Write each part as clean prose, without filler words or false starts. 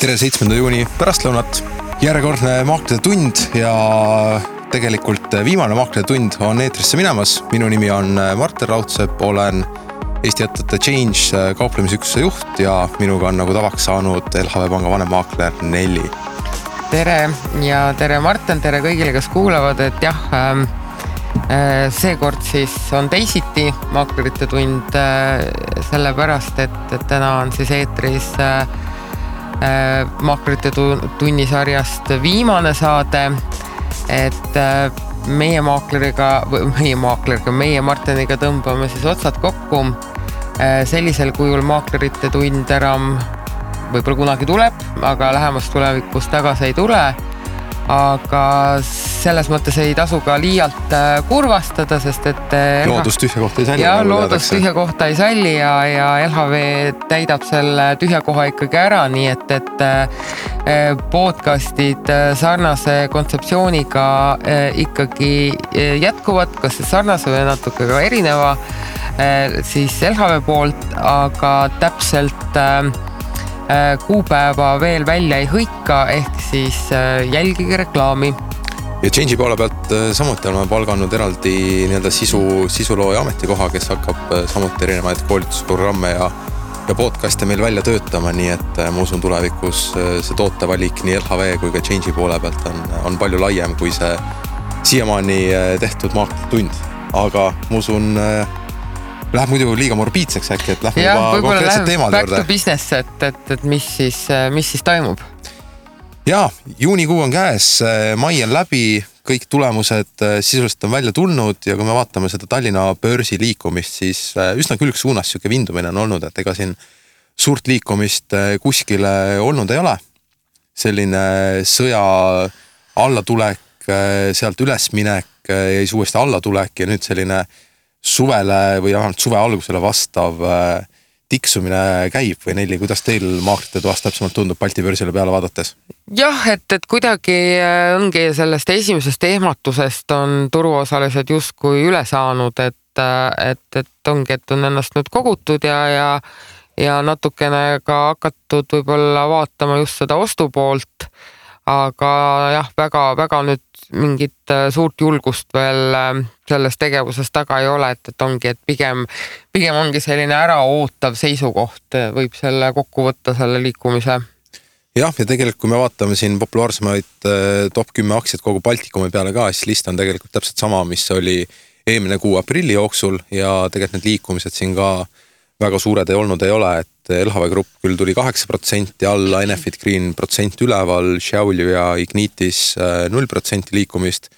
Tere 7. juuni pärastlõunat. Järjekordne maaklerite tund ja tegelikult viimane maaklerite tund on eetrisse minemas. Minu nimi on Martin Raudsepp, olen Eesti ettevõtte Change kauplemisüksuse juht ja minuga on nagu tavaks saanud LHV Panga vanemmaakler Nelli. Tere ja tere Martin, tere kõigile, kes kuulavad, et jah, seekord siis on teisiti maaklerite tund sellepärast, et täna on siis eetris maaklerite tunnisarjast viimane saade, et meie Martiniga tõmbame siis otsad kokku. Sellisel kujul maaklerite tund enam võib-olla kunagi tuleb, aga lähemas tulevikus tagasi ei tule. Aga selles mõttes ei tasu ka liialt kurvastada, sest et loodus tühja kohta ei salli. Ja loodus tühja kohta ei salli ja LHV täidab selle tühja koha ikkagi ära, nii et podcastid sarnase kontseptsiooniga ikkagi jätkuvad, kas sarnase või natuke ka erineva siis LHV poolt, aga täpselt kuupäeva veel välja ei hõika, ehk siis jälgige reklaami. Ja Change'i poole pealt samuti oleme palganud eraldi sisulooja ametikoha, kes hakkab samuti erinevaid koolitusprogramme ja podcast'e meil välja töötama, nii et ma usun tulevikus see tootevalik nii LHV kui ka Change'i poole pealt on palju laiem kui see siiamaani tehtud maaklerite tund. Aga ma usun läheb muidu liiga morbiidseks äkki, et lähme juba konkreetset teemad juurde. Back to business, et mis siis toimub? Jaa, juunikuu on käes, mai on läbi, kõik tulemused sisuliselt on välja tulnud ja kui me vaatame seda Tallinna börsi liikumist, siis üsna külgsuunas siuke vindumine on olnud, et ega siin suurt liikumist kuskile olnud ei ole. Selline sõja allatulek, sealt ülesminek ja siis uuesti allatulek ja nüüd selline suvele või suve algusele vastav tiksumine käib või Nelli, kuidas teil maaklerite toast täpsemalt tundub Balti börsile peale vaadates? Jah, et kuidagi ongi sellest esimesest ehmatusest on turuosalised justkui üle saanud, et ongi, et on ennast nüüd kogutud ja natukene ka hakatud võib-olla vaatama just seda ostupoolt, aga jah, väga nüüd mingit suurt julgust veel selles tegevuses taga ei ole, et ongi, et pigem ongi selline äraootav seisukoht, võib selle kokku võtta selle liikumise. Jah, ja tegelikult kui me vaatame siin populaarsemaid top 10 aktsiat kogu Baltikumi peale ka, siis list on tegelikult täpselt sama, mis oli eelmine kuu aprilli jooksul ja tegelikult need liikumised siin ka väga suured ei olnud, ei ole, et LHV Grupp küll tuli 8% alla, Enefit Green % üleval, Šiauliu ja Ignitis 0% liikumist,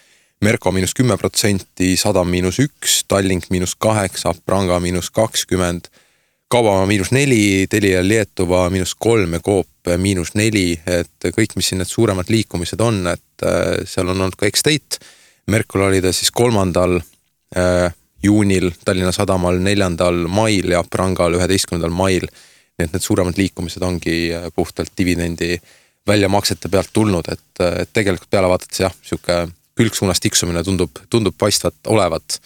Merko -10%, Sadam -1%, Tallink -8%, Pranga -20%, Kaubamaa -4%, Telia Lietuva -3% ja Coop -4%, et kõik, mis siin need suuremad liikumised on, et seal on olnud ka X-State, Merkul oli ta siis 3. juunil, Tallinna Sadamal 4. mail ja Prangal 11. mail. Nii et need suuremad liikumised ongi puhtalt dividendi väljamaksete pealt tulnud, et tegelikult peale vaadates jah, siuke külgsuunas tiksumine tundub paistvat olevat.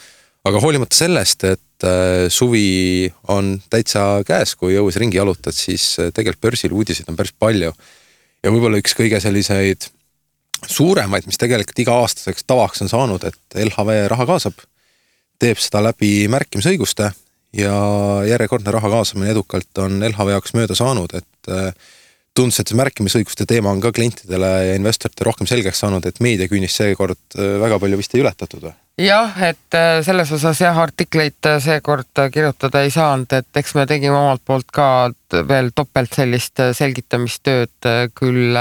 Aga hoolimata sellest, et suvi on täitsa käes, kui jõues ringi jalutad, siis tegelikult börsil uudiseid on päris palju. Ja võib-olla üks kõige selliseid suuremaid, mis tegelikult iga aastaseks tavaks on saanud, et LHV raha kaasab, teeb seda läbi märkimisõiguste ja järjekordne raha kaasamine edukalt on LHV jaoks mööda saanud, et tundus, et see märkimisõiguste teema on ka klientidele ja investorite rohkem selgeks saanud, et meediaküünis seekord väga palju vist ei ületatud või? Jah, et selles osas artikleid seekord kirjutada ei saanud, et eks me tegime omalt poolt ka veel topelt sellist selgitamistööd küll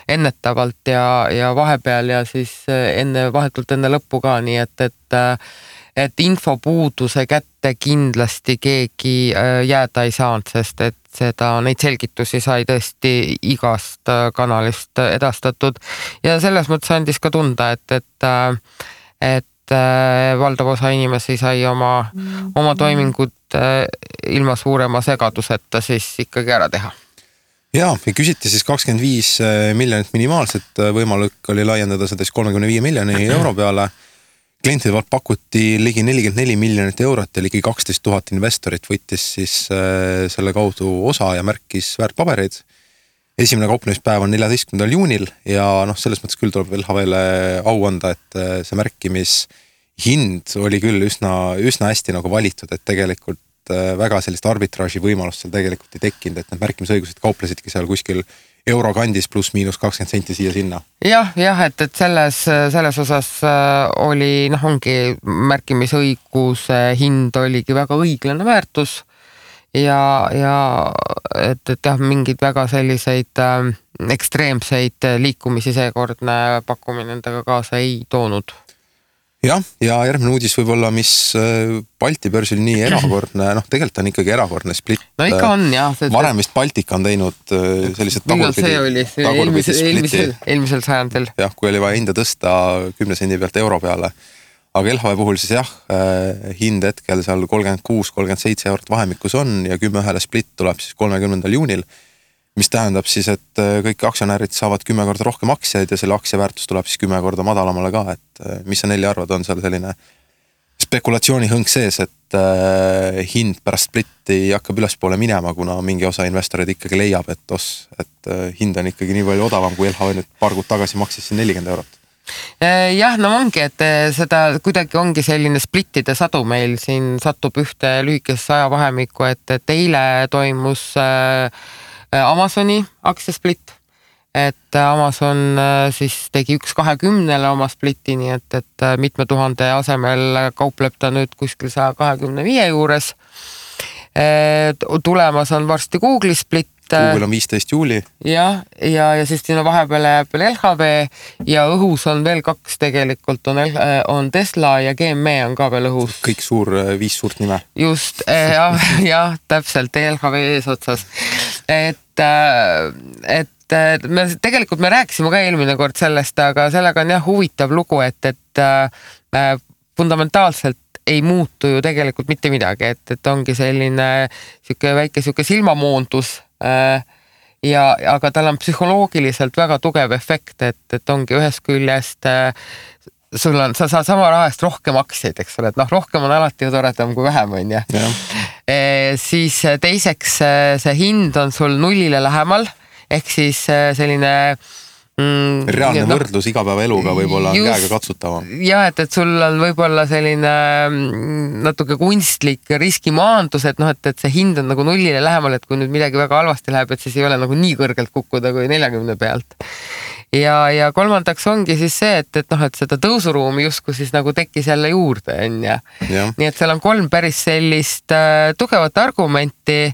ennetavalt ja vahepeal ja siis vahetult enne lõppu ka, nii et infopuuduse kätte kindlasti keegi jääda ei saanud, sest et neid selgitusi sai tõesti igast kanalist edastatud ja selles mõttes andis ka tunda, et valdav osa inimesi sai oma toimingud ilma suurema segaduseta siis ikkagi ära teha. Jaa, küsiti siis 25 miljonit minimaalset, võimalik oli laiendada seda 35 miljoni euro peale. Klientide poolt pakuti ligi 44 miljonit eurot ja ligi 12 000 investorit võttis siis selle kaudu osa ja märkis väärtpabereid. esimene kauplemispäev on 14. juunil ja selles mõttes küll tuleb LHV-le au anda, et see märkimishind oli küll üsna hästi nagu valitud, et tegelikult väga sellist arbitraaži võimalust seal tegelikult ei tekkinud, et need märkimisõigused kauplesidki seal kuskil euro kandis pluss miinus 20 senti siia-sinna. Jah, et selles osas oli, ongi märkimisõiguse hind oligi väga õiglane väärtus ja et jah, mingid väga selliseid ekstreemseid liikumisi seekordne pakkumine endaga kaasa ei toonud. Jah, ja järgmine uudis võib-olla, mis Balti börsil nii erakordne, tegelikult on ikkagi erakordne split. No ikka on, jah. Varem vist Baltika on teinud sellised tagurpidi eelmisel sajandil. Jah, kui oli vaja hinda tõsta 10 sendi pealt euro peale. Aga LHV puhul siis jah, hind hetkel seal 36-37 eurot vahemikus on ja 10 split tuleb siis 30. juunil. Mis tähendab siis, et kõik aktsionärid saavad 10 korda rohkem aktsiaid ja selle aktsia väärtus tuleb siis 10 korda madalamale ka, et mis sa Nelli arvad, on seal selline spekulatsioonihõng sees, et hind pärast splitti hakkab ülespoole minema, kuna mingi osa investorid ikkagi leiab, et hind on ikkagi nii palju odavam, kui LHV nüüd paar kuud tagasi maksis siin 40 eurot. Jah, ongi, et seda kuidagi ongi selline splittide sadu meil siin satub ühte lühikesse ajavahemikku, et eile toimus Amazoni aktsiasplit, et Amazon siis tegi 1.20 oma splitti, nii et mitme tuhande asemel kaupleb ta nüüd kuskil 125 juures. Tulemas on varsti Google'i split. Google on 15 juuli. Ja siis siin on vahepeal LHV ja õhus on veel 2 tegelikult, on Tesla ja GME on ka veel õhus. Kõik 5 suurt nime. Just, jah, täpselt LHV eesotsas. Et me rääkisime ka eelmine kord sellest, aga sellega on jah huvitav lugu, et fundamentaalselt ei muutu ju tegelikult mitte midagi, et ongi selline väike silmamoondus aga tal on psühholoogiliselt väga tugev efekt, et ongi ühest küljest sa saad sama rahast rohkem aktsiaid, eks ole, et rohkem on alati ju toredam kui vähem, on ju. Siis teiseks see hind on sul nullile lähemal, ehk siis selline reaalne võrdlus igapäevaeluga võib-olla on käega katsutavam. Ja, et sul on võib-olla selline natuke kunstlik riskimaandus, et see hind on nagu nullile lähemal, et kui nüüd midagi väga halvasti läheb, et siis ei ole nagu nii kõrgelt kukkuda kui 40 pealt. Ja kolmandaks ongi siis see, et seda tõusuruumi justkui siis nagu tekkis jälle juurde, on ja. Nii et seal on 3 päris sellist tugevat argumenti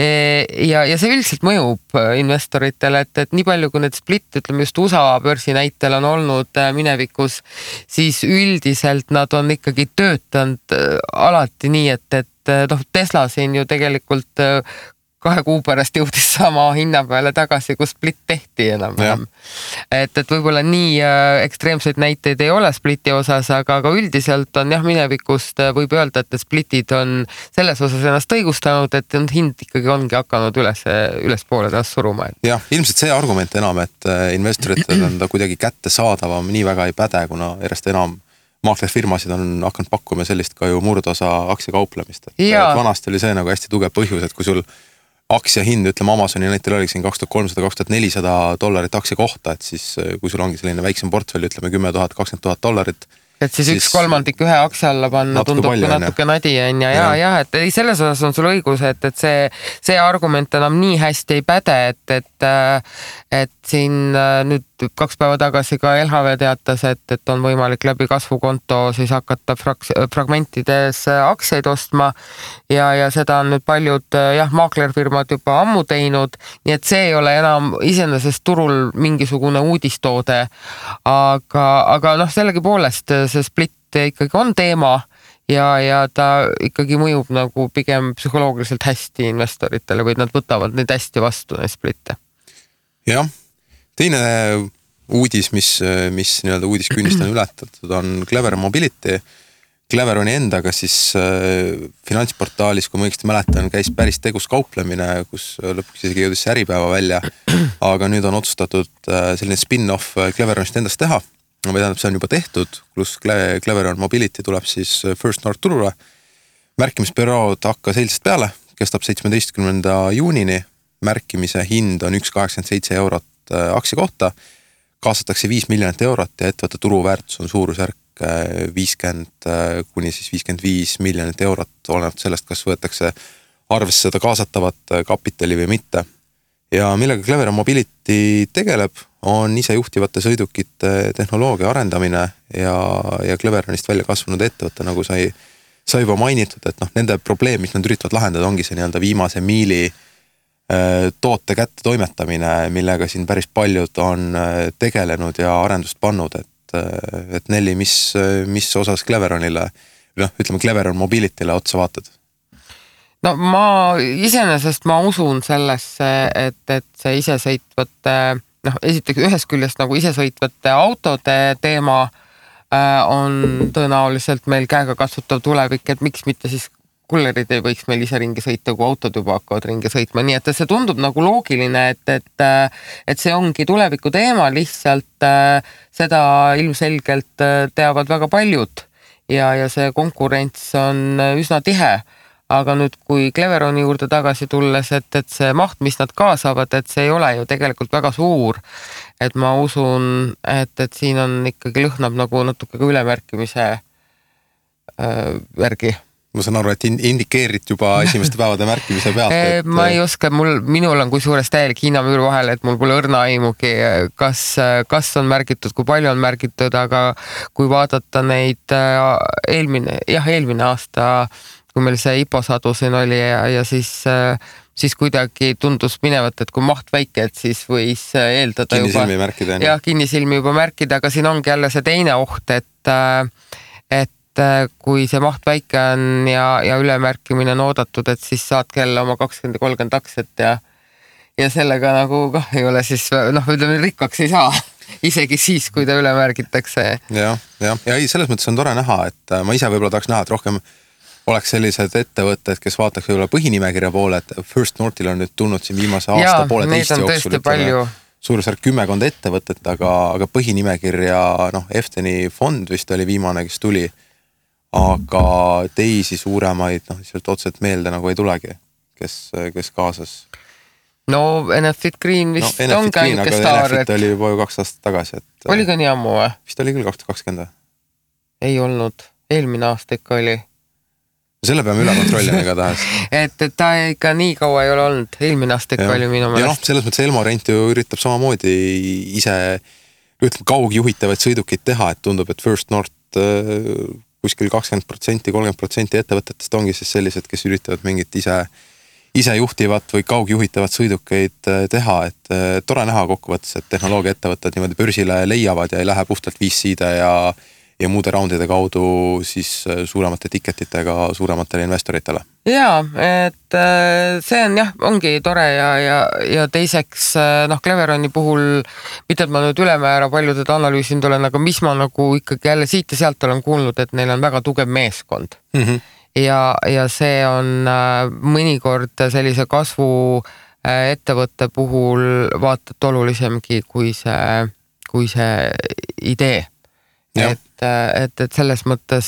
ja see üldiselt mõjub investoritele, et nii palju kui need split, ütleme just USA börsi näitel on olnud minevikus, siis üldiselt nad on ikkagi töötanud alati nii, et Tesla siin ju tegelikult 2 kuu pärast jõudis sama hinna peale tagasi, kus split tehti enam. Et võib-olla nii ekstreemseid näiteid ei ole spliti osas, aga üldiselt on jah minevikust võib öelda, et splitid on selles osas ennast õigustanud, et hind ikkagi ongi hakanud ülespoole taas suruma. Jah, ilmselt see argument enam, et investoritel on ta kuidagi kätte saadavam, nii väga ei päde, kuna järjest enam maaklerfirmasid on hakanud pakkuma sellist ka ju murdosa aktsiakauplemist. Vanasti oli see nagu hästi tugev põhjus, et kui sul aktsia hind, ütleme Amazoni näitel oli siin $2300-2400 aktsia kohta, et siis kui sul ongi selline väiksem portfell, ütleme $10,000-20,000, et siis 1/3 ühe aktsia alla panna tundub natuke nadi on ja, et selles osas on sul õigus, et see argument enam nii hästi ei päde, et siin nüüd 2 päeva tagasi ka LHV teatas, et on võimalik läbi kasvukonto siis hakata fragmentides aktsiaid ostma ja seda on nüüd paljud maaklerfirmad juba ammu teinud, nii et see ei ole enam iseenesest turul mingisugune uudistoode, aga sellegipoolest see split ikkagi on teema ja ta ikkagi mõjub nagu pigem psühholoogiliselt hästi investoritele või nad võtavad neid hästi vastu, neid splitte. Jah, teine uudis, mis nii-öelda uudiskünnist on ületatud, on Clever Mobility. Cleveroni endaga siis finantsportaalis, kui ma õigesti mäletan, käis päris tegus kauplemine, kus lõpuks isegi jõudis see Äripäeva välja, aga nüüd on otsustatud selline spin-off Cleveronist endast teha. Või tähendab, see on juba tehtud, pluss Cleveron Mobility tuleb siis First North turule. Märkimisperiood hakkas eilsest peale, kestab 17. juunini märkimise hind on 1,87 eurot aktsia kohta, kaasatakse 5 miljonit eurot ja ettevõtte turuväärtus on suurusjärk 50 kuni siis 55 miljonit eurot, olenevalt sellest, kas võetakse arvesse seda kaasatavat kapitali või mitte. Ja millega Cleveron Mobility tegeleb, on isejuhtivate sõidukite tehnoloogia arendamine ja Cleveronist välja kasvanud ettevõtte, nagu sai juba mainitud, et nende probleem, mis nad üritavad lahendada, ongi see nii-öelda viimase miili toote kätte toimetamine, millega siin päris paljud on tegelenud ja arendust pannud, et Nelli, mis osas Cleveronile, ütleme Cleveron Mobilityle otsa vaatad? No iseenesest ma usun sellesse, et see isesõitvate, esiteks ühest küljest nagu isesõitvate autode teema on tõenäoliselt meil käega kasvatav tulevik, et miks mitte siis kullerid ei võiks meil ise ringi sõita, kui autod juba hakkavad ringi sõitma, nii et see tundub nagu loogiline, et see ongi tuleviku teema, lihtsalt seda ilmselgelt teavad väga paljud ja see konkurents on üsna tihe. Aga nüüd, kui Cleveroni juurde tagasi tulles, et see maht, mis nad kaasavad, et see ei ole ju tegelikult väga suur. Et ma usun, et siin on ikkagi lõhnab nagu natuke ka ülemärkimise järgi. Ma saan aru, et indikeerid juba esimeste päevade märkimise pealt. Ma ei oska, minul on kui suurest täielik Hiinamüür vahel, et mul pole õrna aimugi, kas on märgitud, kui palju on märgitud, aga kui vaadata neid eelmine aasta, kui meil see IPO-sadu siin oli ja siis kuidagi tundus minevat, et kui maht väike, et siis võis eeldada kinnisilmi märkida. Jah, kinnisilmi juba märkida, aga siin ongi jälle see teine oht, et kui see maht väike on ja ülemärkimine on oodatud, et siis saad kella oma 20-30 aktsiat ja sellega nagu ei ole siis, ütleme, rikkaks ei saa, isegi siis, kui ta ülemärgitakse. Ja selles mõttes on tore näha, et ma ise võib-olla tahaks näha, et rohkem oleks sellised ettevõtted, kes vaataks võib-olla põhinimekirja poole, et First Northil on nüüd tulnud siin viimase aasta pooleteist jooksul suurusjärk 10 ettevõtet, aga põhinimekirja, Efteni fond vist oli viimane, kes tuli, aga teisi suuremaid, lihtsalt otseselt meelde nagu ei tulegi, kes kaasas. No Enefit Green vist on ka ainult staar. Enefit oli juba ju 2 aastat tagasi. Oli ka nii ammu või? Vist oli küll 2020. Ei olnud, eelmine aasta ikka oli. Selle peame üle kontrollima igatahes. et ta ikka nii kaua ei ole olnud, eelmine aasta ikka oli minu meelest. Selles mõttes Elmo Rent ju üritab samamoodi ise kaugjuhitavaid sõidukid teha, et tundub, et First North kuskil 20%, 30% ettevõtetest ongi siis sellised, kes üritavad mingit ise juhtivat või kaugjuhitavat sõidukeid teha, et tore näha kokkuvõttes, et tehnoloogia ettevõtted niimoodi börsile leiavad ja ei lähe puhtalt VC-de ja muude raundide kaudu siis suuremate ticketitega suurematele investoritele. Jaa, et see on ongi tore ja teiseks Cleveroni puhul, mitte et ma nüüd ülemäära paljuded analüüsinud olen, aga mis ma nagu ikkagi jälle siit ja sealt olen kuulnud, et neil on väga tugev meeskond. Ja see on mõnikord sellise kasvu ettevõtte puhul vaatad olulisemgi kui see idee. Et selles mõttes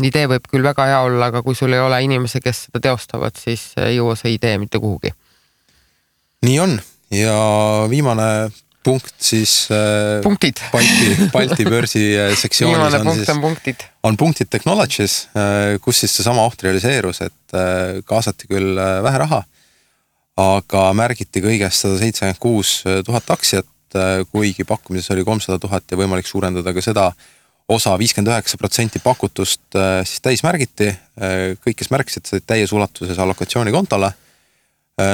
idee võib küll väga hea olla, aga kui sul ei ole inimese, kes seda teostavad, siis ei jõua see idee mitte kuhugi. Nii on. Ja viimane punkt siis punktid. Balti börsi sektsioonis on punktid Technologies, kus siis see sama oht realiseerus, et kaasati küll vähe raha, aga märgiti kõigest 176,000 aktsiat, kuigi pakkumises oli 300,000 ja võimalik suurendada ka seda osa 59% pakutust siis täis märgiti. Kõik, kes märkisid, said täies ulatuses allokatsiooni kontole.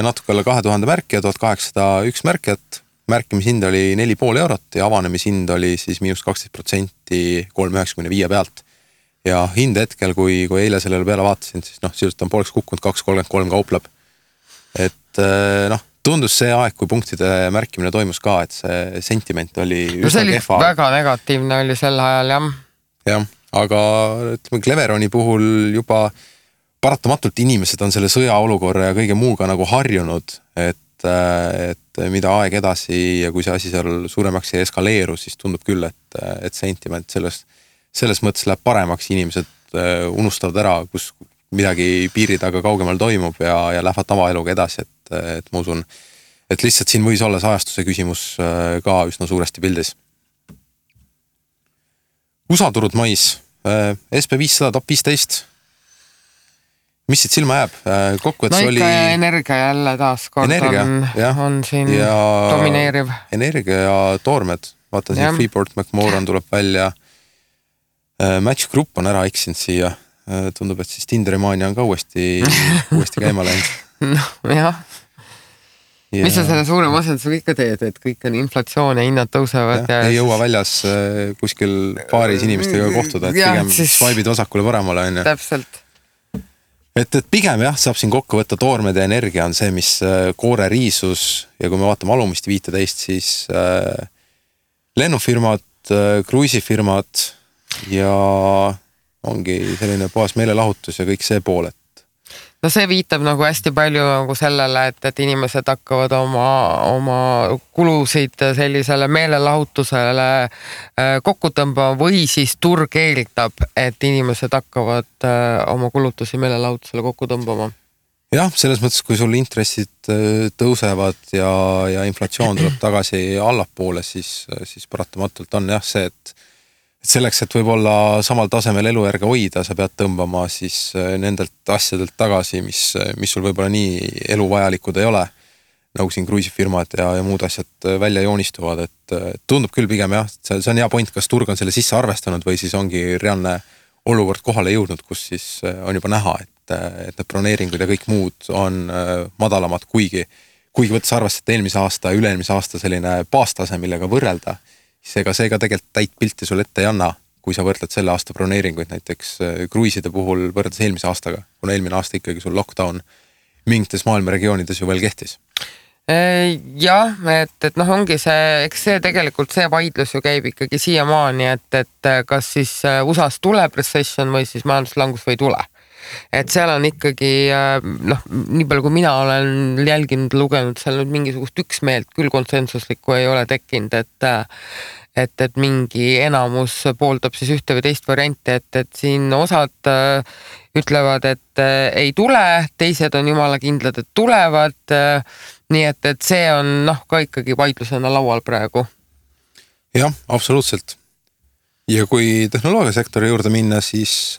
Natuke alla 2000 märkija, 1801 märkijat. Märkimishind oli 4,5 eurot ja avanemishind oli siis -12% 3,95 pealt. Ja hind hetkel, kui eile sellele peale vaatasin, siis sisuliselt on pooleks kukkunud 2,33 kaupleb. Et tundus see aeg, kui punktide märkimine toimus ka, et see sentiment oli üsna kehva. Väga negatiivne oli sel ajal, jah. Jah, aga ütleme, Cleveroni puhul juba paratamatult inimesed on selle sõjaolukorra ja kõige muuga nagu harjunud, et mida aeg edasi ja kui see asi seal suuremaks ei eskaleeru, siis tundub küll, et sentiment selles mõttes läheb paremaks, inimesed unustavad ära, kus midagi piiri taga kaugemal toimub ja lähevad tavaeluga edasi, et ma usun, et lihtsalt siin võis olla see ajastuse küsimus ka üsna suuresti pildis. USA turud mais, SP500 top 15. Mis siit silma jääb? Kokkuvõttes no oli... ikka energia jälle taas kord on siin ja domineeriv. Energia ja toormed. Vaata siin Freeport McMoran tuleb välja. Match Group on ära eksinud siia. Tundub, et siis Tindermania on ka uuesti käima läinud. No jah. Ja... Mis sa selle suure masendusega ikka teed, et kõik on inflatsioon ja hinnad tõusevad? Ja ei jõua väljas kuskil paaris inimestega kohtuda, et pigem siis... swipe'id vasakule paremale. On, täpselt. Et pigem jah, saab siin kokku võtta toormed ja energia on see, mis koore riisus ja kui me vaatame alumist 15, siis lennufirmad, kruisifirmad ja ongi selline puhas meelelahutus ja kõik see pool, et no see viitab nagu hästi palju nagu sellele, et inimesed hakkavad oma kulusid sellisele meelelahutusele kokku tõmbama või siis turg eeldab, et inimesed hakkavad oma kulutusi meelelahutusele kokku tõmbama. Jah, selles mõttes, kui sul intressid tõusevad ja inflatsioon tuleb tagasi allapoole, siis paratamatult on jah see, et selleks, et võib-olla samal tasemel elujärge hoida, sa pead tõmbama siis nendelt asjadelt tagasi, mis sul võib-olla nii eluvajalikud ei ole, nagu siin kruisifirmad ja muud asjad välja joonistuvad, et tundub küll pigem jah, see on hea point, kas turg on selle sisse arvestanud või siis ongi reaalne olukord kohale jõudnud, kus siis on juba näha, et need broneeringud ja kõik muud on madalamad, kuigi võttes arvestada eelmise aasta ja üle-eelmise aasta selline baastase, millega võrrelda, seega tegelikult täit pilti sul ette ei anna, kui sa võrdled selle aasta broneeringuid näiteks kruiside puhul võrreldes eelmise aastaga, kuna eelmine aasta ikkagi sul lockdown mingites maailma regioonides ju veel kehtis. Jah, et noh, ongi see, eks see tegelikult see vaidlus ju käib ikkagi siiamaani, et kas siis USAs tuleb recession või siis majanduslangus või ei tule. Et seal on ikkagi, noh, nii palju kui mina olen jälginud, lugenud, seal nüüd mingisugust üksmeelt küll konsensuslikku ei ole tekkinud, et mingi enamus pooldab siis ühte või teist varianti, et siin osad ütlevad, et ei tule, teised on jumala kindlad, et tulevad, nii et see on noh, ka ikkagi vaidlusena laual praegu. Jah, absoluutselt. Ja kui tehnoloogiasektori juurde minna, siis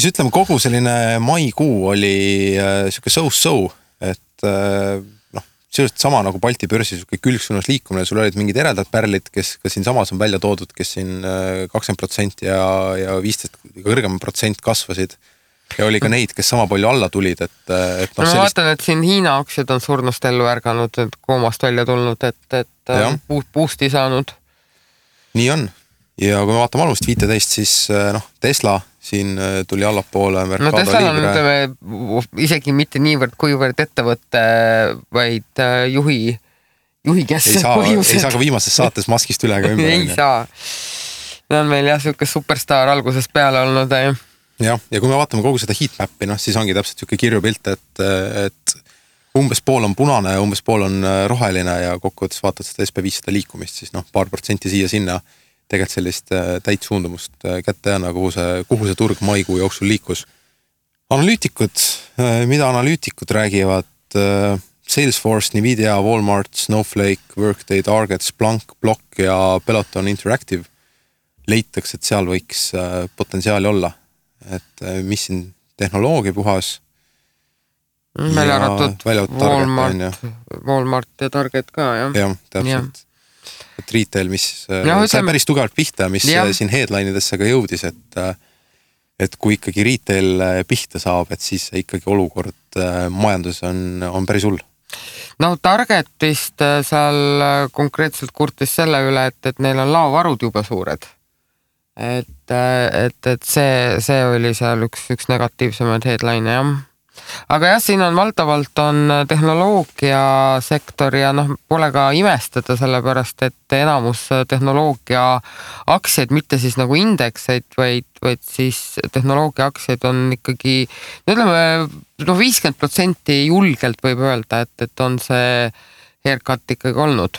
ütleme kogu selline maikuu oli siuke so-so, et noh, sellest sama nagu Balti börsi siuke külgsuunas liikumine, sul olid mingid eredad pärlid, kes ka siin samas on välja toodud, kes siin 20% ja 15% kõrgem protsent kasvasid ja oli ka neid, kes sama palju alla tulid, et no, ma vaatan, et siin Hiina aktsiad on surnust ellu ärganud, et koomast välja tulnud, et boost'i saanud. Nii on. Ja kui me vaatame alumist 15, siis noh, Tesla siin tuli allapoole. No Tesla on isegi mitte niivõrd kuivõrd ettevõtte, vaid juhi keskset põhjused. Ei saa ka viimases saates maskist üle ka ümber. Ei saa. See on meil jah siuke superstar algusest peale olnud. Ja kui me vaatame kogu seda heatmappi, no, siis ongi täpselt siuke kirju pilt, et umbes pool on punane ja umbes pool on roheline ja kokkuvõttes vaatad seda SP500 liikumist, siis noh, paar protsenti siia-sinna tegelikult sellist täit suundumust kätte jääna, kuhu see turg maikuu jooksul liikus. Analüütikud, mida analüütikud räägivad, Salesforce, Nvidia, Walmart, Snowflake, Workday, Target, Splunk, Block ja Peloton Interactive leitakse, et seal võiks potentsiaali olla. Et mis siin tehnoloogia puhas välja arvatud Walmart ja Target ka, jah? Jah, täpselt. Et retail, mis sai päris tugevalt pihta, mis siin headline'idesse ka jõudis, et kui ikkagi retail pihta saab, et siis ikkagi olukord majandus on päris hull. No Targetist seal konkreetselt kurtis selle üle, et neil on laovarud juba suured. Et see oli seal üks negatiivsemaid headline, jah. Aga jah, siin on valdavalt on tehnoloogiasektor ja noh, pole ka imestada sellepärast, et enamus tehnoloogia aktsiaid, mitte siis nagu indekseid, vaid siis tehnoloogia aktsiaid on ikkagi, ütleme, no 50% julgelt võib öelda, et on see haircut ikkagi olnud.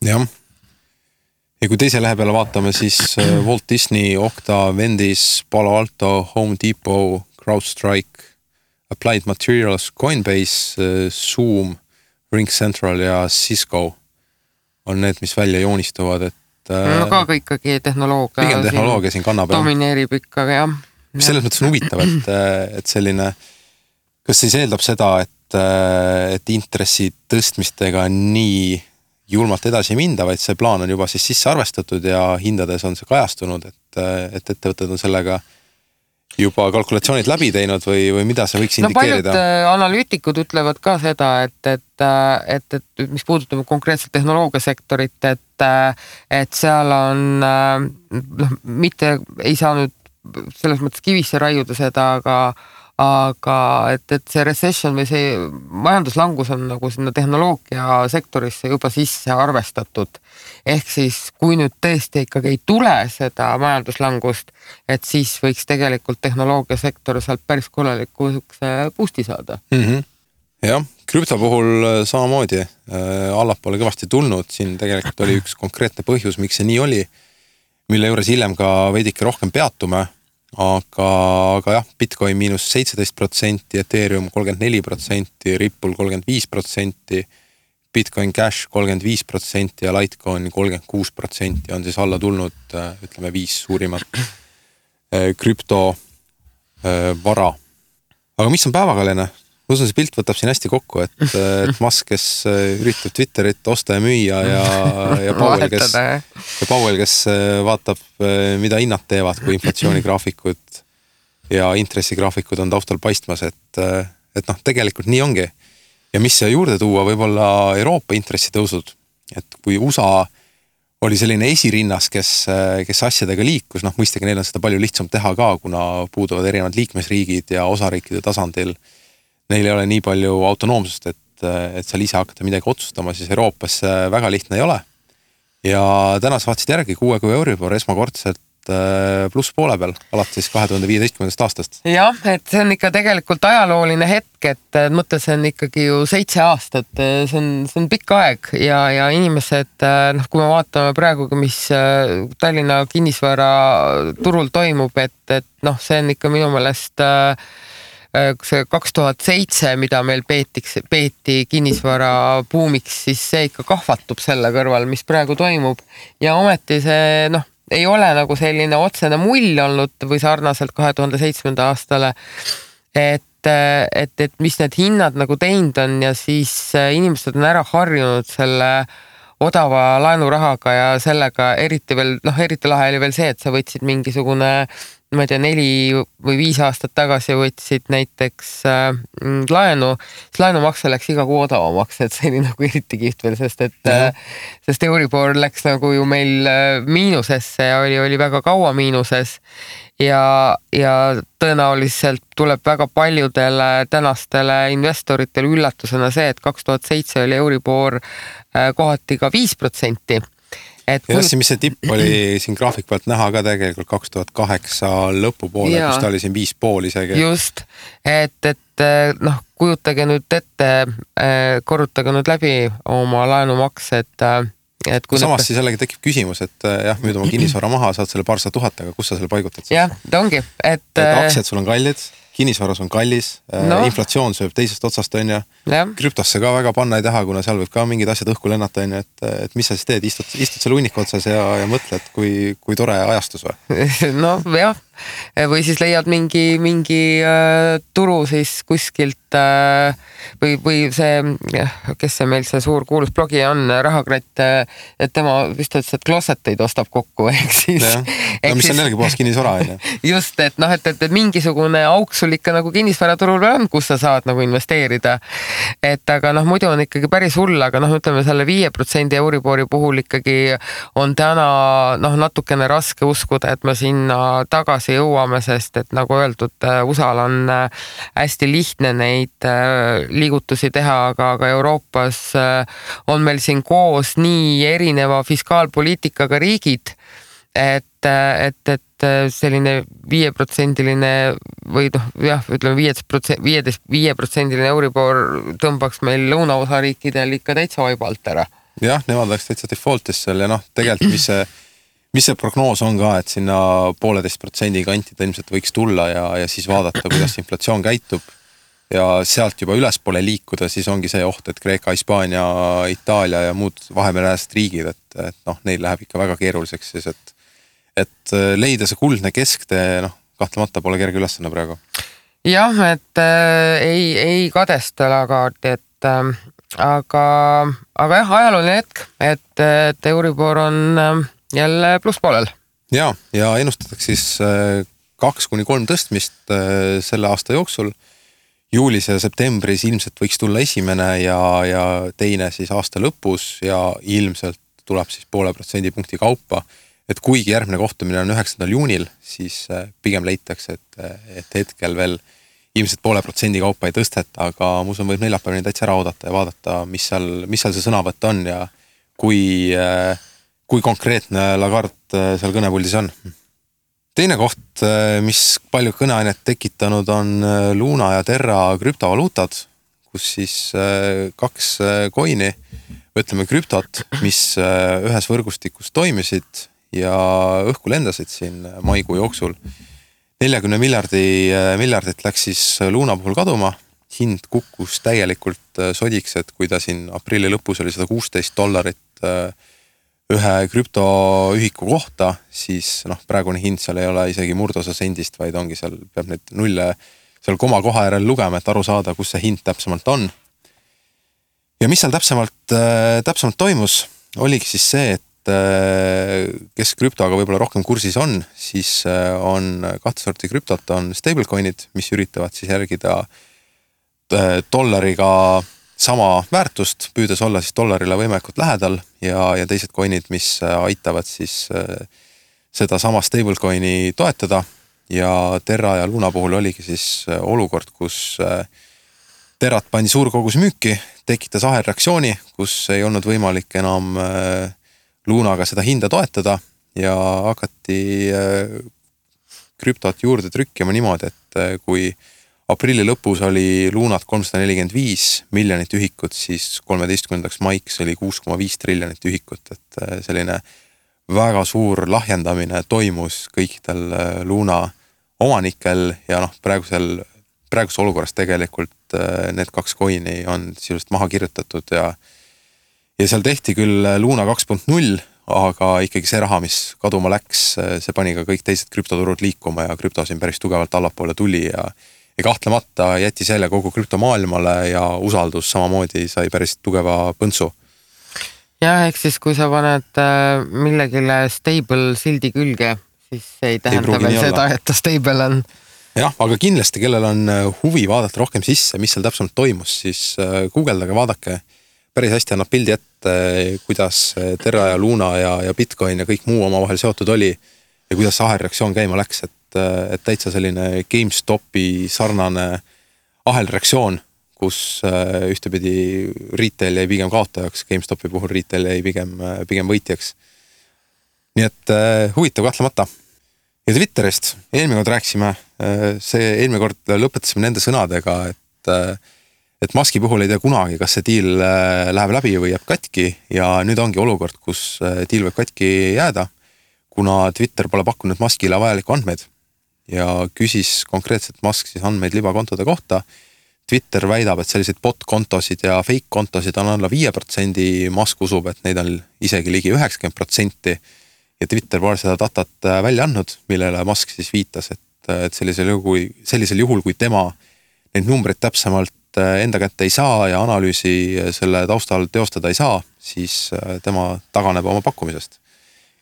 Jah. Ja kui teise lähe peale vaatame, siis Walt Disney, Okta, Vendis, Palo Alto, Home Depot, CrowdStrike, Applied Materials, Coinbase, Zoom, RingCentral ja Cisco on need, mis välja joonistuvad, et no ka ikkagi tehnoloogia. Pigem tehnoloogia siin kannab. Domineerib ikkagi, jah. Mis selles mõttes on huvitav, et selline, kas siis eeldab seda, et intressi tõstmistega nii julmalt edasi minda, vaid see plaan on juba siis sisse arvestatud ja hindades on see kajastunud, et ettevõtted on sellega juba kalkulatsioonid läbi teinud või mida see võiks indikeerida? Paljud analüütikud ütlevad ka seda, et mis puudutab konkreetselt tehnoloogiasektorit, et seal on, mitte ei saa nüüd selles mõttes kivisse raiuda seda, aga et see recession või see majanduslangus on nagu sinna tehnoloogia sektorisse juba sisse arvestatud. Ehk siis, kui nüüd tõesti ikkagi ei tule seda majanduslangust, et siis võiks tegelikult tehnoloogia sektor sealt päris korralikuks boost'i saada. Jah, krüpto puhul samamoodi allapoole kõvasti tulnud. Siin tegelikult oli üks konkreetne põhjus, miks see nii oli, mille juures hiljem ka veidike rohkem peatume. Aga jah, Bitcoin miinus 17%, Ethereum 34%, Ripple 35%, Bitcoin Cash 35% ja Litecoin 36% on siis alla tulnud, ütleme 5 suurimat krüpto vara. Aga mis on päevakajaline? Usun, see pilt võtab siin hästi kokku, et Musk, kes üritab Twitterit osta ja müüa ja Powell, kes vaatab, mida hinnad teevad, kui inflatsioonigraafikud ja intressigraafikud on taustal paistmas, et tegelikult nii ongi. Ja mis juurde tuua, võib-olla Euroopa intressitõusud, et kui USA oli selline esirinnas, kes asjadega liikus, mõistagi neil on seda palju lihtsam teha ka, kuna puuduvad erinevad liikmesriigid ja osariikide tasandil neil ei ole nii palju autonoomsust, et seal ise hakata midagi otsustama, siis Euroopas väga lihtne ei ole. Ja täna vaatasid järgi 6 Euribor esmakordselt pluss poole peal, alates 2015. aastast. Jah, et see on ikka tegelikult ajalooline hetk, et mõtlesin ikkagi ju 7 aastat, see on pikk aeg ja inimesed, kui me vaatame praegugi, mis Tallinna kinnisvara turul toimub, et see on ikka minu meelest see 2007, mida meil peeti kinnisvara buumiks, siis see ikka kahvatub selle kõrval, mis praegu toimub. Ja ometi see ei ole nagu selline otsene mull olnud või sarnaselt 2007. aastale, et mis need hinnad nagu teinud on ja siis inimesed on ära harjunud selle odava laenurahaga ja sellega eriti lahe oli veel see, et sa võtsid mingisugune 4 või 5 aastat tagasi võtsid näiteks laenu, siis laenumakse läks iga kuu odavamaks, et see oli nagu eriti kihvt veel, sest Euribor läks nagu ju meil miinusesse ja oli väga kaua miinuses ja tõenäoliselt tuleb väga paljudele tänastele investoritele üllatusena see, et 2007 oli Euribor kohati ka 5%. Ja mis see tipp oli siin graafiku pealt näha ka tegelikult 2008 lõpupoole, kus ta oli siin 5,5 isegi. Just, et kujutage nüüd ette, korrutage nüüd läbi oma laenumaks, et kui samas siis jällegi tekib küsimus, et jah, müüd oma kinnisvara maha, saad selle paarsada tuhat, aga kus sa selle paigutad? Jah, ta ongi. Et aktsiad sul on kallid, kinnisvaras on kallis, inflatsioon sööb teisest otsast, on ja krüptosse ka väga panna ei taha, kuna seal võib ka mingid asjad õhku lennata, on ja, et mis sa siis teed, istud seal hunniku otsas ja mõtled, kui tore ajastus või? Jah, või siis leiad mingi turu siis kuskilt või see, kes see meil see suur kuulus blogi on, Rahakratt, et tema vist ütles, et klosseteid ostab kokku, ehk siis. Mis on jällegi puhas kinnisvara, on ja? Just, et mingisugune auk sul ikka nagu kinnisvaraturul on, kus sa saad nagu investeerida. Et aga muidu on ikkagi päris hull, aga ütleme selle 5% Euribori puhul ikkagi on täna natukene raske uskuda, et me sinna tagasi jõuame, sest et nagu öeldud, USA-l on hästi lihtne neid liigutusi teha, aga Euroopas on meil siin koos nii erineva fiskaalpoliitikaga riigid, et selline 5%-line või ütleme 5% Euribor tõmbaks meil lõunaosariikidel ikka täitsa vaibalt ära. Jah, nemad läks täitsa defaultis seal ja tegelikult mis see prognoos on ka, et sinna 1,5% kanti ilmselt võiks tulla ja siis vaadata, kuidas inflatsioon käitub. ja sealt juba ülespoole liikuda, siis ongi see oht, et Kreeka, Hispaania, Itaalia ja muud Vahemereäärsed riigid, et noh, neil läheb ikka väga keeruliseks siis, et leida see kuldne kesktee, noh, kahtlemata pole kerge ülesanne praegu. Jah, et ei kadesta Lagardi, et aga jah, ajalooline hetk, et Euribor on jälle plusspoolel. Ja ennustatakse siis 2-3 tõstmist selle aasta jooksul. Juulis ja septembris ilmselt võiks tulla esimene ja teine siis aasta lõpus ja ilmselt tuleb siis 0,5% kaupa. Et kuigi järgmine kohtumine on 9. juunil, siis pigem leitakse, et hetkel veel ilmselt 0,5% kaupa ei tõsteta, aga mu usun võib neljapäevani täitsa ära oodata ja vaadata, mis seal see sõnavõtt on ja kui konkreetne Lagarde seal kõnepuldis on. Teine koht, mis palju kõneainet tekitanud on Luna ja Terra krüptovaluutad, kus siis 2 coin'i, ütleme krüptot, mis ühes võrgustikus toimisid ja õhku lendasid siin maikuu jooksul. 40 miljardit läks siis Luna puhul kaduma, hind kukkus täielikult sodiks, et kui ta siin aprilli lõpus oli $116 ühe krüptoühiku kohta, siis noh, praegune hind seal ei ole isegi murdosa sendist, vaid ongi seal, peab need nulle seal koma koha järel lugema, et aru saada, kus see hind täpsemalt on. Ja mis seal täpsemalt toimus, oligi siis see, et kes krüptoga võib-olla rohkem kursis on, siis on 2 sorti krüptot, on stablecoin'id, mis üritavad siis järgida dollariga sama väärtust, püüdes olla siis dollarile võimalikult lähedal ja teised coin'id, mis aitavad siis seda sama stablecoin'i toetada ja Terra ja Luna puhul oligi siis olukord, kus Terrat pandi suur kogus müüki, tekitas ahelreaktsiooni, kus ei olnud võimalik enam Lunaga seda hinda toetada ja hakati krüptot juurde trükkima niimoodi, et kui aprilli lõpus oli Lunat 345 miljonit ühikut, siis 13. maiks oli 6,5 triljonit ühikut, et selline väga suur lahjendamine toimus kõikidel Luna omanikel ja noh, praeguses olukorras tegelikult need 2 coin'i on sisuliselt maha kirjutatud ja seal tehti küll Luna 2.0, aga ikkagi see raha, mis kaduma läks, see pani ka kõik teised krüptoturud liikuma ja krüpto siin päris tugevalt allapoole tuli ja kahtlemata jättis jälle kogu krüptomaailmale ja usaldus samamoodi sai päris tugeva põntsu. Jah, ehk siis kui sa paned millegile stable sildi külge, siis ei tähenda veel seda, et ta stable on. Jah, aga kindlasti, kellel on huvi vaadata rohkem sisse, mis seal täpsemalt toimus, siis guugeldage, vaadake. Päris hästi annab pildi ette, kuidas Terra ja Luna ja Bitcoin ja kõik muu oma vahel seotud oli ja kuidas ahelreaktsioon käima läks, et täitsa selline GameStopi sarnane ahelreaktsioon, kus ühtepidi retail jäi pigem kaotajaks, GameStopi puhul retail jäi pigem võitjaks. Nii et huvitav kahtlemata. Ja Twitterist eelmine kord rääksime, eelmine kord lõpetasime nende sõnadega, et Muski puhul ei tea kunagi, kas see deal läheb läbi või jääb katki ja nüüd ongi olukord, kus deal võib katki jääda, kuna Twitter pole pakkunud Muskile vajalikku andmeid ja küsis konkreetselt Musk siis andmeid libakontode kohta. Twitter väidab, et selliseid bot-kontosid ja fake-kontosid on alla 5%, Musk usub, et neid on isegi ligi 90% ja Twitter pole seda datat välja andnud, millele Musk siis viitas, et sellisel juhul, kui tema neid numbreid täpsemalt enda kätte ei saa ja analüüsi selle taustal teostada ei saa, siis tema taganeb oma pakkumisest.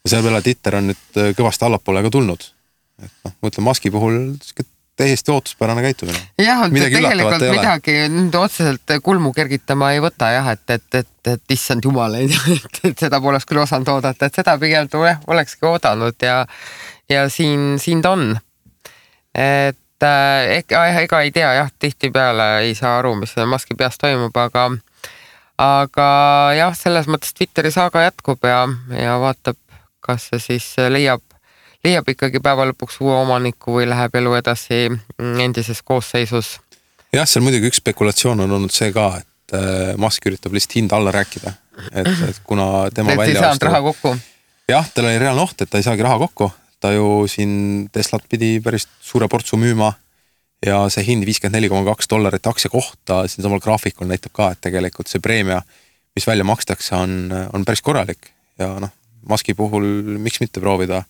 Ja selle peale Twitter on nüüd kõvasti allapoole ka tulnud. Et noh, mõtlen Muski puhul täiesti ootuspärane käitumine. Jah, tegelikult midagi nüüd otseselt kulmu kergitama ei võta jah, et issand jumal, et seda poleks küll osanud oodata, et seda pigem olekski oodanud ja siin ta on. Et ega ei tea jah, tihti peale ei saa aru, mis Muski peas toimub, aga jah, selles mõttes Twitteri saaga jätkub ja vaatab, kas see siis leiab ikkagi päeva lõpuks uue omaniku või läheb elu edasi endises koosseisus. Jah, seal muidugi üks spekulatsioon on olnud see ka, et Musk üritab lihtsalt hinda alla rääkida, et kuna tema välja ei saanud raha kokku. Jah, tal oli reaalne oht, et ta ei saagi raha kokku, ta ju siin Teslat pidi päris suure portsu müüma ja see hind $54.2 aktsia kohta siin samal graafikul näitab ka, et tegelikult see preemia, mis välja makstakse, on päris korralik ja noh, Muski puhul miks mitte proovida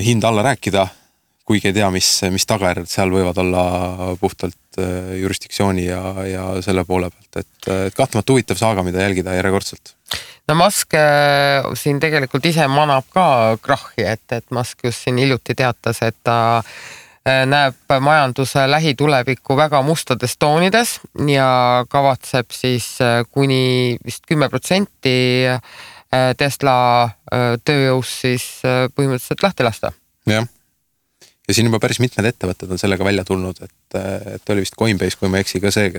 hind alla rääkida, kuigi ei tea, mis tagajärjed seal võivad olla puhtalt jurisdiktsiooni ja selle poole pealt, et kahtlemata huvitav saaga, mida jälgida järjekordselt. No Musk siin tegelikult ise manab ka krahhi, et Musk just siin hiljuti teatas, et ta näeb majanduse lähitulevikku väga mustades toonides ja kavatseb siis kuni vist 10% Tesla tööjõus siis põhimõtteliselt lahti lasta. Jah. Ja siin juba päris mitmed ettevõtted on sellega välja tulnud, et oli vist Coinbase, kui ma eksi ka see,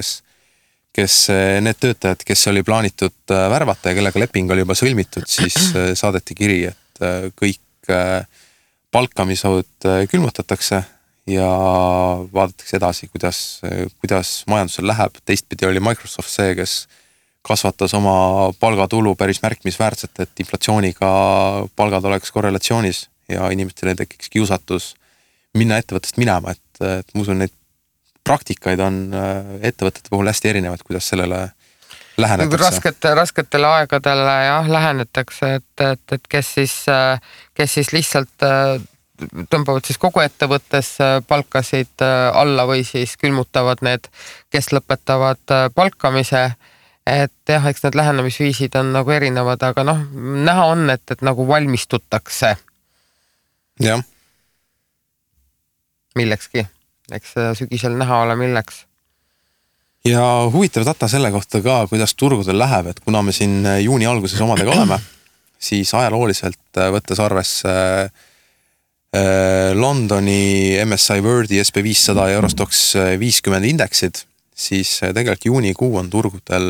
kes need töötajad, kes oli plaanitud värvata ja kellega leping oli juba sõlmitud, siis saadeti kiri, et kõik palkamised külmutatakse ja vaadatakse edasi, kuidas majandusel läheb. Teistpidi oli Microsoft see, kes kasvatas oma palgatulu päris märkimisväärselt, et inflatsiooniga palgad oleks korrelatsioonis ja inimestele tekiks kiusatus minna ettevõttest minema, et ma usun, neid praktikaid on ettevõtete puhul hästi erinevad, kuidas sellele lähenetakse. Rasketele aegadele jah, lähenetakse, et kes siis lihtsalt tõmbavad siis kogu ettevõttes palkasid alla või siis külmutavad need, kes lõpetavad palkamise. Et jah, eks need lähenemisviisid on nagu erinevad, aga noh, näha on, et nagu valmistutakse. Jah. Millekski. Eks sügisel näha ole milleks. Ja huvitav data selle kohta ka, kuidas turgudel läheb, et kuna me siin juuni alguses omadega oleme, siis ajalooliselt võttes arvesse Londoni MSCI Worldi SP500 ja Eurostox 50 indeksid, siis tegelikult juunikuu on turgudel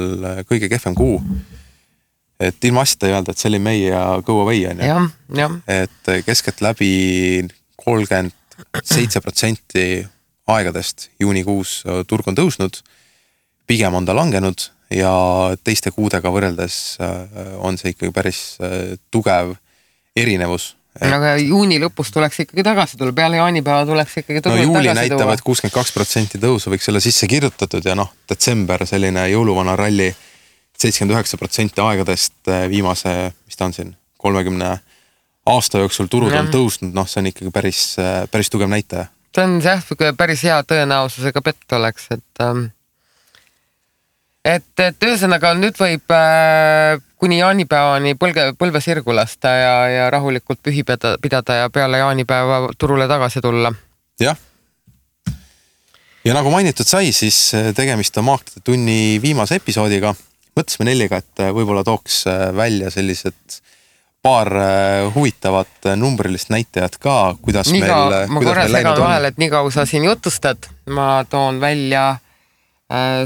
kõige kehvem kuu. Et ilma asjata ei öelda, et see oli meie ja go away on ja. Et keskelt läbi 37% aegadest juunikuus turg on tõusnud, pigem on ta langenud ja teiste kuudega võrreldes on see ikkagi päris tugev erinevus. Aga juuni lõpus tuleks ikkagi tagasi tulla, peale jaanipäeva tuleks ikkagi tagasi tulla. Juuli näitab, et 62% tõusu võiks olla sisse kirjutatud ja noh, detsember selline jõuluvana ralli 79% aegadest viimase, mis ta on siin, 30 aasta jooksul turud on tõusnud, noh see on ikkagi päris tugev näitaja. See on see päris hea tõenäosusega pett oleks, et ühesõnaga nüüd võib kuni jaanipäevani põlve sirgu lasta ja rahulikult pühi pidada ja peale jaanipäeva turule tagasi tulla. Jah. Ja nagu mainitud sai, siis tegemist on Maakide tunni viimase episoodiga. Mõtlesime Nelliga, et võib-olla tooks välja sellised paar huvitavat numbrilist näitajat ka, kuidas meil läinud on. Ma korra segan vahel, et nii kaua sa siin jutustad. Ma toon välja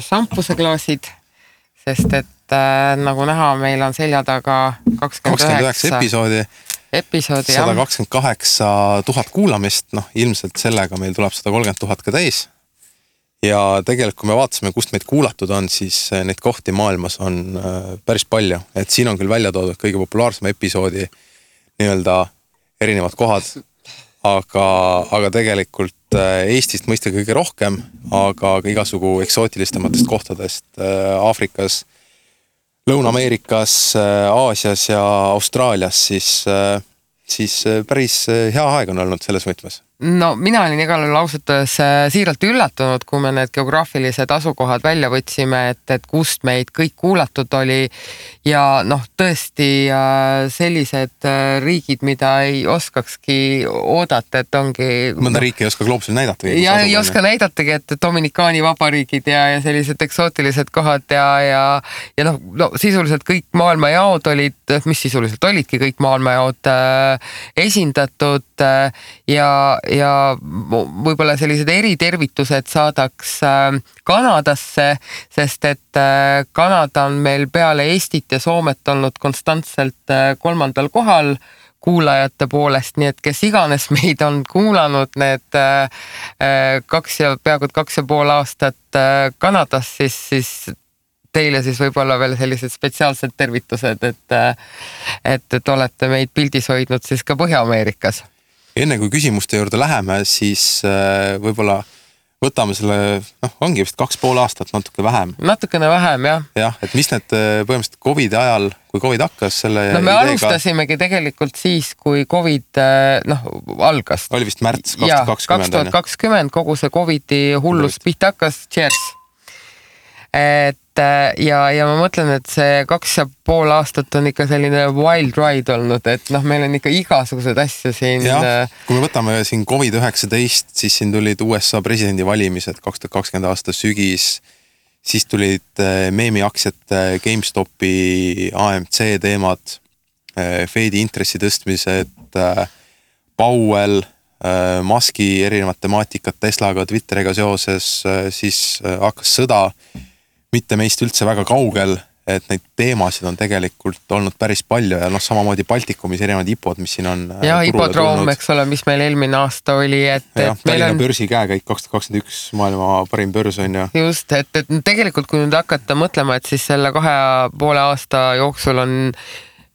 šampuseklaasid, sest et nagu näha, meil on selja taga 29 episoodi, 128 000 kuulamist, noh ilmselt sellega meil tuleb 130 000 ka täis. Ja tegelikult, kui me vaatasime, kust meid kuulatud on, siis neid kohti maailmas on päris palju. Et siin on küll välja toodud kõige populaarsema episoodi nii-öelda erinevad kohad, aga tegelikult Eestist mõista kõige rohkem, aga ka igasugu eksootilistemates kohtadest Aafrikas, Lõuna-Ameerikas, Aasias ja Austraalias, siis päris hea aeg on olnud selles võtmes. No mina olin igal lausutades siiralt üllatunud, kui me need geograafilised asukohad välja võtsime, et kust meid kõik kuulatud oli ja noh, tõesti sellised riigid, mida ei oskakski oodata, et ongi... Mõnda riiki ei oska gloobusel näidata. Ja ei oska näidatagi, et Dominikaani vabariigid ja sellised eksootilised kohad ja no sisuliselt kõik maailmajaod olid, mis sisuliselt olidki kõik maailmajaod esindatud ja võib-olla sellised eritervitused saadaks Kanadasse, sest et Kanada on meil peale Eestit ja Soomet olnud konstantselt 3. kohal kuulajate poolest, nii et kes iganes meid on kuulanud need peaaegu 2,5 aastat Kanadas, siis teile siis võib-olla veel sellised spetsiaalsed tervitused, et olete meid pildis hoidnud siis ka Põhja-Ameerikas. enne kui küsimuste juurde läheme, siis võib-olla võtame selle, ongi vist 2,5 aastat, natuke vähem. Natukene vähem, jah. Jah, et mis need põhimõtteliselt COVID ajal, kui COVID hakkas selle me ideega... alustasimegi tegelikult siis, kui COVID algas. Oli vist märts 2020. 2020 kogu see COVIDi hullus pihta hakkas, cheers. Ja ma mõtlen, et see 2,5 aastat on ikka selline wild ride olnud, et meil on ikka igasugused asju siin. Ja, kui me võtame siin COVID-19, siis siin tulid USA presidendivalimised 2020 aasta sügis, siis tulid meemiaktsiate GameStopi AMC teemad, Fedi intressi tõstmised, Powell, Muski erinevad temaatikad Teslaga, Twitteriga seoses, siis hakkas sõda, mitte meist üldse väga kaugel, et neid teemasid on tegelikult olnud päris palju ja samamoodi Baltikumis erinevad IPO-d, mis siin on ja IPO-droom, eks ole, mis meil eelmine aasta oli, et Tallinna börsi käekäik 2021 maailma parim börs on ju. Just, et tegelikult kui nüüd hakata mõtlema, et siis selle 2,5 aasta jooksul on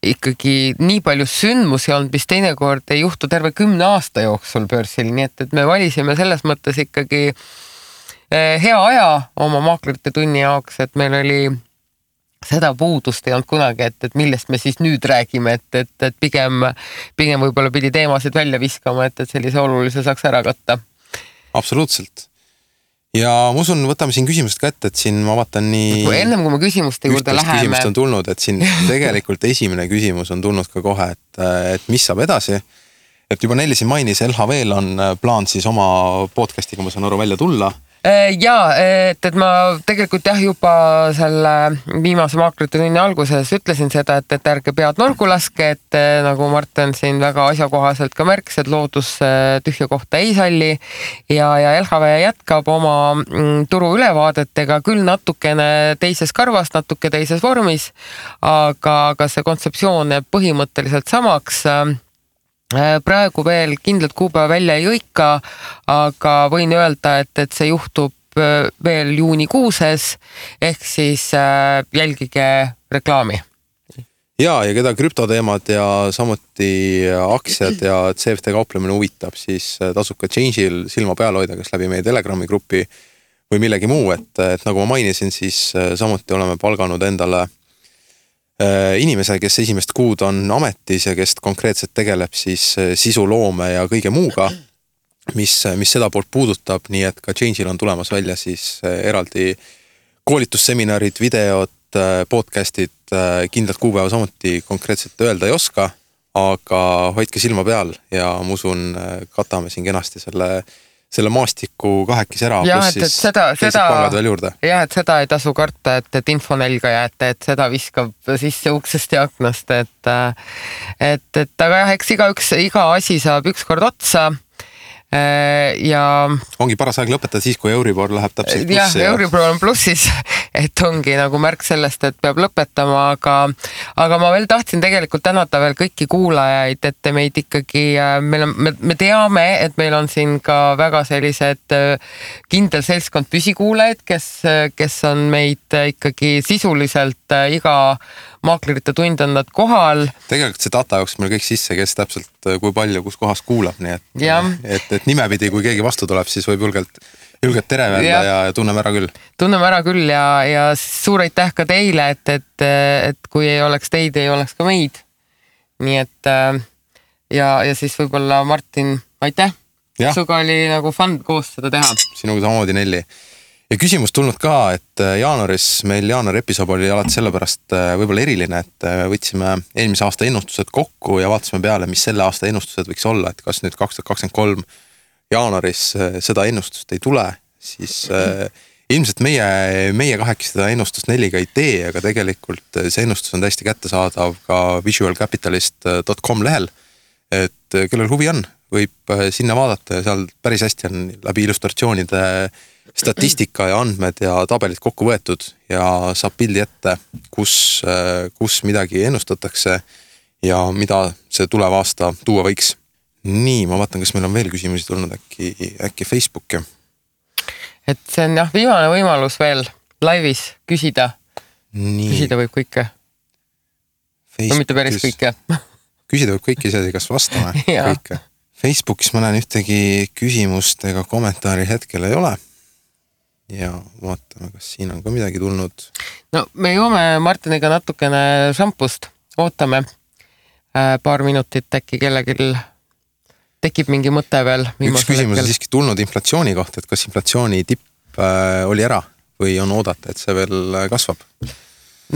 ikkagi nii palju sündmusi olnud, mis teinekord ei juhtu terve 10 aasta jooksul börsil, nii et me valisime selles mõttes ikkagi hea aja oma maaklerite tunni jaoks, et meil oli seda puudust ei olnud kunagi, et millest me siis nüüd räägime, et pigem võib-olla pidi teemasid välja viskama, et sellise olulise saaks ära katta. Absoluutselt. Ja ma usun, võtame siin küsimused ka ette, et siin ma vaatan nii... Ennem kui me küsimuste juurde läheme... Küsimust on tulnud, et siin tegelikult esimene küsimus on tulnud ka kohe, et mis saab edasi. Et juba Nelli siin mainis, LHV-l on plaan siis oma podcast'iga, ma saan aru, välja tulla. Jaa, et ma tegelikult juba selle viimase maaklerite tunni alguses ütlesin seda, et ärge pead nurgu laske, et nagu Martin siin väga asjakohaselt ka märkis, et loodus tühja kohta ei salli ja LHV jätkab oma turu ülevaadetega küll natukene teises karvas, natuke teises vormis, aga see kontseptsioon jääb põhimõtteliselt samaks. Praegu veel kindlalt kuupäeva välja ei õika, aga võin öelda, et see juhtub veel juunikuuses, ehk siis jälgige reklaami. Ja keda krüptoteemad ja samuti aktsiad ja CFD kauplemine huvitab, siis tasub ka Change'il silma peal hoida, kas läbi meie Telegrami grupi või millegi muu, et nagu ma mainisin, siis samuti oleme palganud endale inimese, kes esimest kuud on ametis ja kes konkreetselt tegeleb siis sisuloome ja kõige muuga, mis seda poolt puudutab, nii et ka Change'il on tulemas välja siis eraldi koolitusseminarid, videod, podcastid, kindlalt kuupäeva samuti konkreetselt öelda ei oska, aga hoidke silma peal ja ma usun, katame siin kenasti selle maastiku kahekis ära, pluss siis teised palgad veel juurde. Jah, et seda ei tasu karta, et infonelga jääte, et seda viskab sisse uksest ja aknast, aga jah, eks iga asi saab ükskord otsa. Ja ongi paras aeg lõpetada siis, kui Euribor läheb täpselt plussi. Ja Euribor on plussis, et ongi nagu märk sellest, et peab lõpetama, aga ma veel tahtsin tegelikult tänada veel kõiki kuulajaid, et meid ikkagi, me teame, et meil on siin ka väga sellised kindel seltskond püsikuulajaid, kes on meid ikkagi sisuliselt iga maaklerite tund on nad kohal. Tegelikult see data jooks meil kõik sisse, kes täpselt kui palju, kus kohas kuulab, nii et nimepidi, kui keegi vastu tuleb, siis võib julgelt tere öelda ja tunneme ära küll. Tunneme ära küll ja suur aitäh ka teile, et kui ei oleks teid, ei oleks ka meid. Nii et ja siis võib-olla Martin, aitäh. Suga oli nagu fun koos seda teha. Sinuga samamoodi, Nelli. Ja küsimus tulnud ka, et meil jaanuari episood oli alati sellepärast võib-olla eriline, et võtsime eelmise aasta ennustused kokku ja vaatasime peale, mis selle aasta ennustused võiks olla, et kas nüüd 2023 jaanuaris seda ennustust ei tule, siis ilmselt meie kahekesi seda ennustust Nelliga ei tee, aga tegelikult see ennustus on täiesti kättesaadav ka visualcapitalist.com lehel, et kellel huvi on, võib sinna vaadata ja seal päris hästi on läbi illustratsioonide statistika ja andmed ja tabelid kokku võetud ja saab pildi ette, kus midagi ennustatakse ja mida see tulev aasta tuua võiks. Nii, ma vaatan, kas meil on veel küsimusi tulnud äkki Facebooki. Et see on viimane võimalus veel laivis küsida. Küsida võib kõike. No mitte päris kõike. Küsida võib kõike, ise kas vastame kõike. Facebookis ma näen ühtegi küsimust ega kommentaari hetkel ei ole. Ja vaatame, kas siin on ka midagi tulnud. No me joome Martiniga natukene šampust. Ootame paar minutit, äkki kellegil tekib mingi mõte veel. Üks küsimus on siiski tulnud inflatsiooni kohta, et kas inflatsiooni tipp oli ära või on oodata, et see veel kasvab?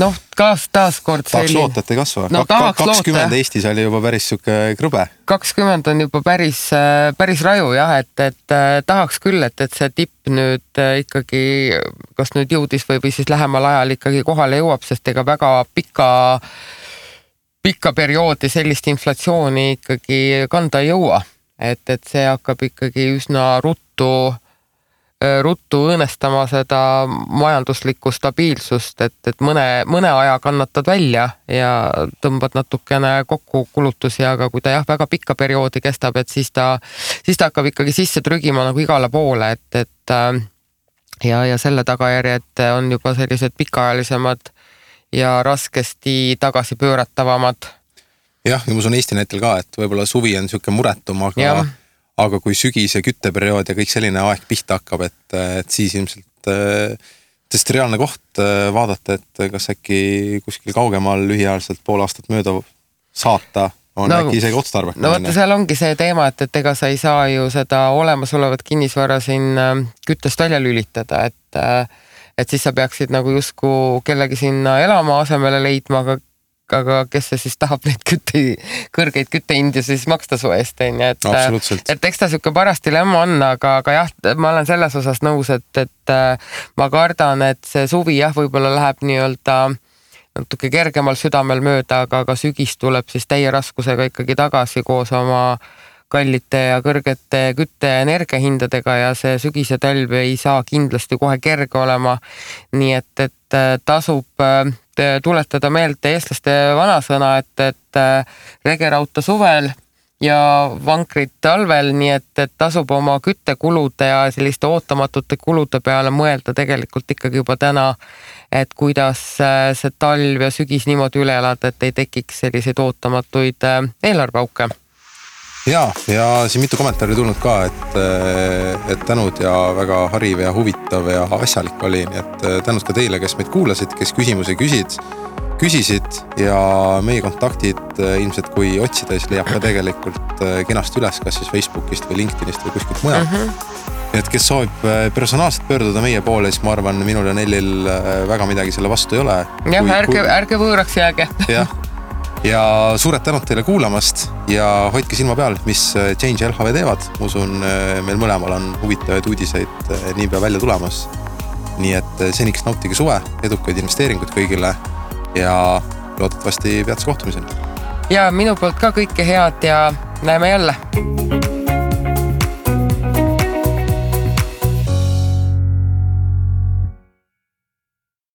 Noh, taas kord tahaks loota, et ei kasva. No, 20 Eestis oli juba päris süke krõbe. 20 on juba päris raju, jah, et tahaks küll, et see tipp nüüd ikkagi, kas nüüd jõudis või siis lähemal ajal ikkagi kohale jõuab, sest ega väga pikka perioodi sellist inflatsiooni ikkagi kanda ei jõua. Et see hakkab ikkagi üsna ruttu õõnestama seda majanduslikku stabiilsust, et mõne aja kannatad välja ja tõmbad natukene kokku kulutusi, aga kui ta väga pikka perioodi kestab, et siis ta hakkab ikkagi sisse trügima nagu igale poole, et ja selle tagajärjed on juba sellised pikaajalisemad ja raskesti tagasi pööratavamad. Jah, ja ma usun Eesti näitel ka, et võib-olla suvi on siuke muretum, aga kui sügis ja kütteperiood ja kõik selline aeg pihta hakkab, et siis ilmselt tõesti reaalne koht vaadata, et kas äkki kuskil kaugemal lühiajaliselt pool aastat mööda saata on äkki isegi otstarbekas. No vaata, seal ongi see teema, et ega sa ei saa ju seda olemasolevat kinnisvara siin küttest välja lülitada, et siis sa peaksid nagu justkui kellegi sinna elama asemele leidma, aga kes see siis tahab neid kõrgeid küttehindi siis maksta su eest, et eks ta siuke paras dilemma on, aga jah, ma olen selles osas nõus, et ma kardan, et see suvi võib-olla läheb nii-öelda natuke kergemal südamel mööda, aga sügis tuleb siis täie raskusega ikkagi tagasi koos oma kallite ja kõrgete kütte ja energiahindadega ja see sügis ja talv ei saa kindlasti kohe kerge olema. Nii et tasub tuletada meelde eestlaste vanasõna, et regerauta suvel ja vankrid talvel, nii et tasub oma küttekulude ja selliste ootamatute kulude peale mõelda tegelikult ikkagi juba täna, et kuidas see talv ja sügis niimoodi üle elada, et ei tekiks selliseid ootamatuid eelarveauke. Ja siin mitu kommentaari tulnud ka, et tänud ja väga hariv ja huvitav ja asjalik oli, nii et tänud ka teile, kes meid kuulasid, kes küsimusi küsisid ja meie kontaktid ilmselt kui otsida, siis leiab ka tegelikult kenasti üles, kas siis Facebookist või LinkedInist või kuskilt mujalt. Et kes soovib personaalselt pöörduda meie poole, siis ma arvan, minul ja Nellil väga midagi selle vastu ei ole. Jah, ärge võõraks jääge. Ja suured tänud teile kuulamast ja hoidke silma peal, mis Change LHV teevad. Usun, meil mõlemal on huvitavaid uudiseid niipea välja tulemas. Nii et seniks nautige suve, edukaid investeeringuid kõigile ja loodetavasti peatse kohtumiseni. Ja minu poolt ka kõike head ja näeme jälle.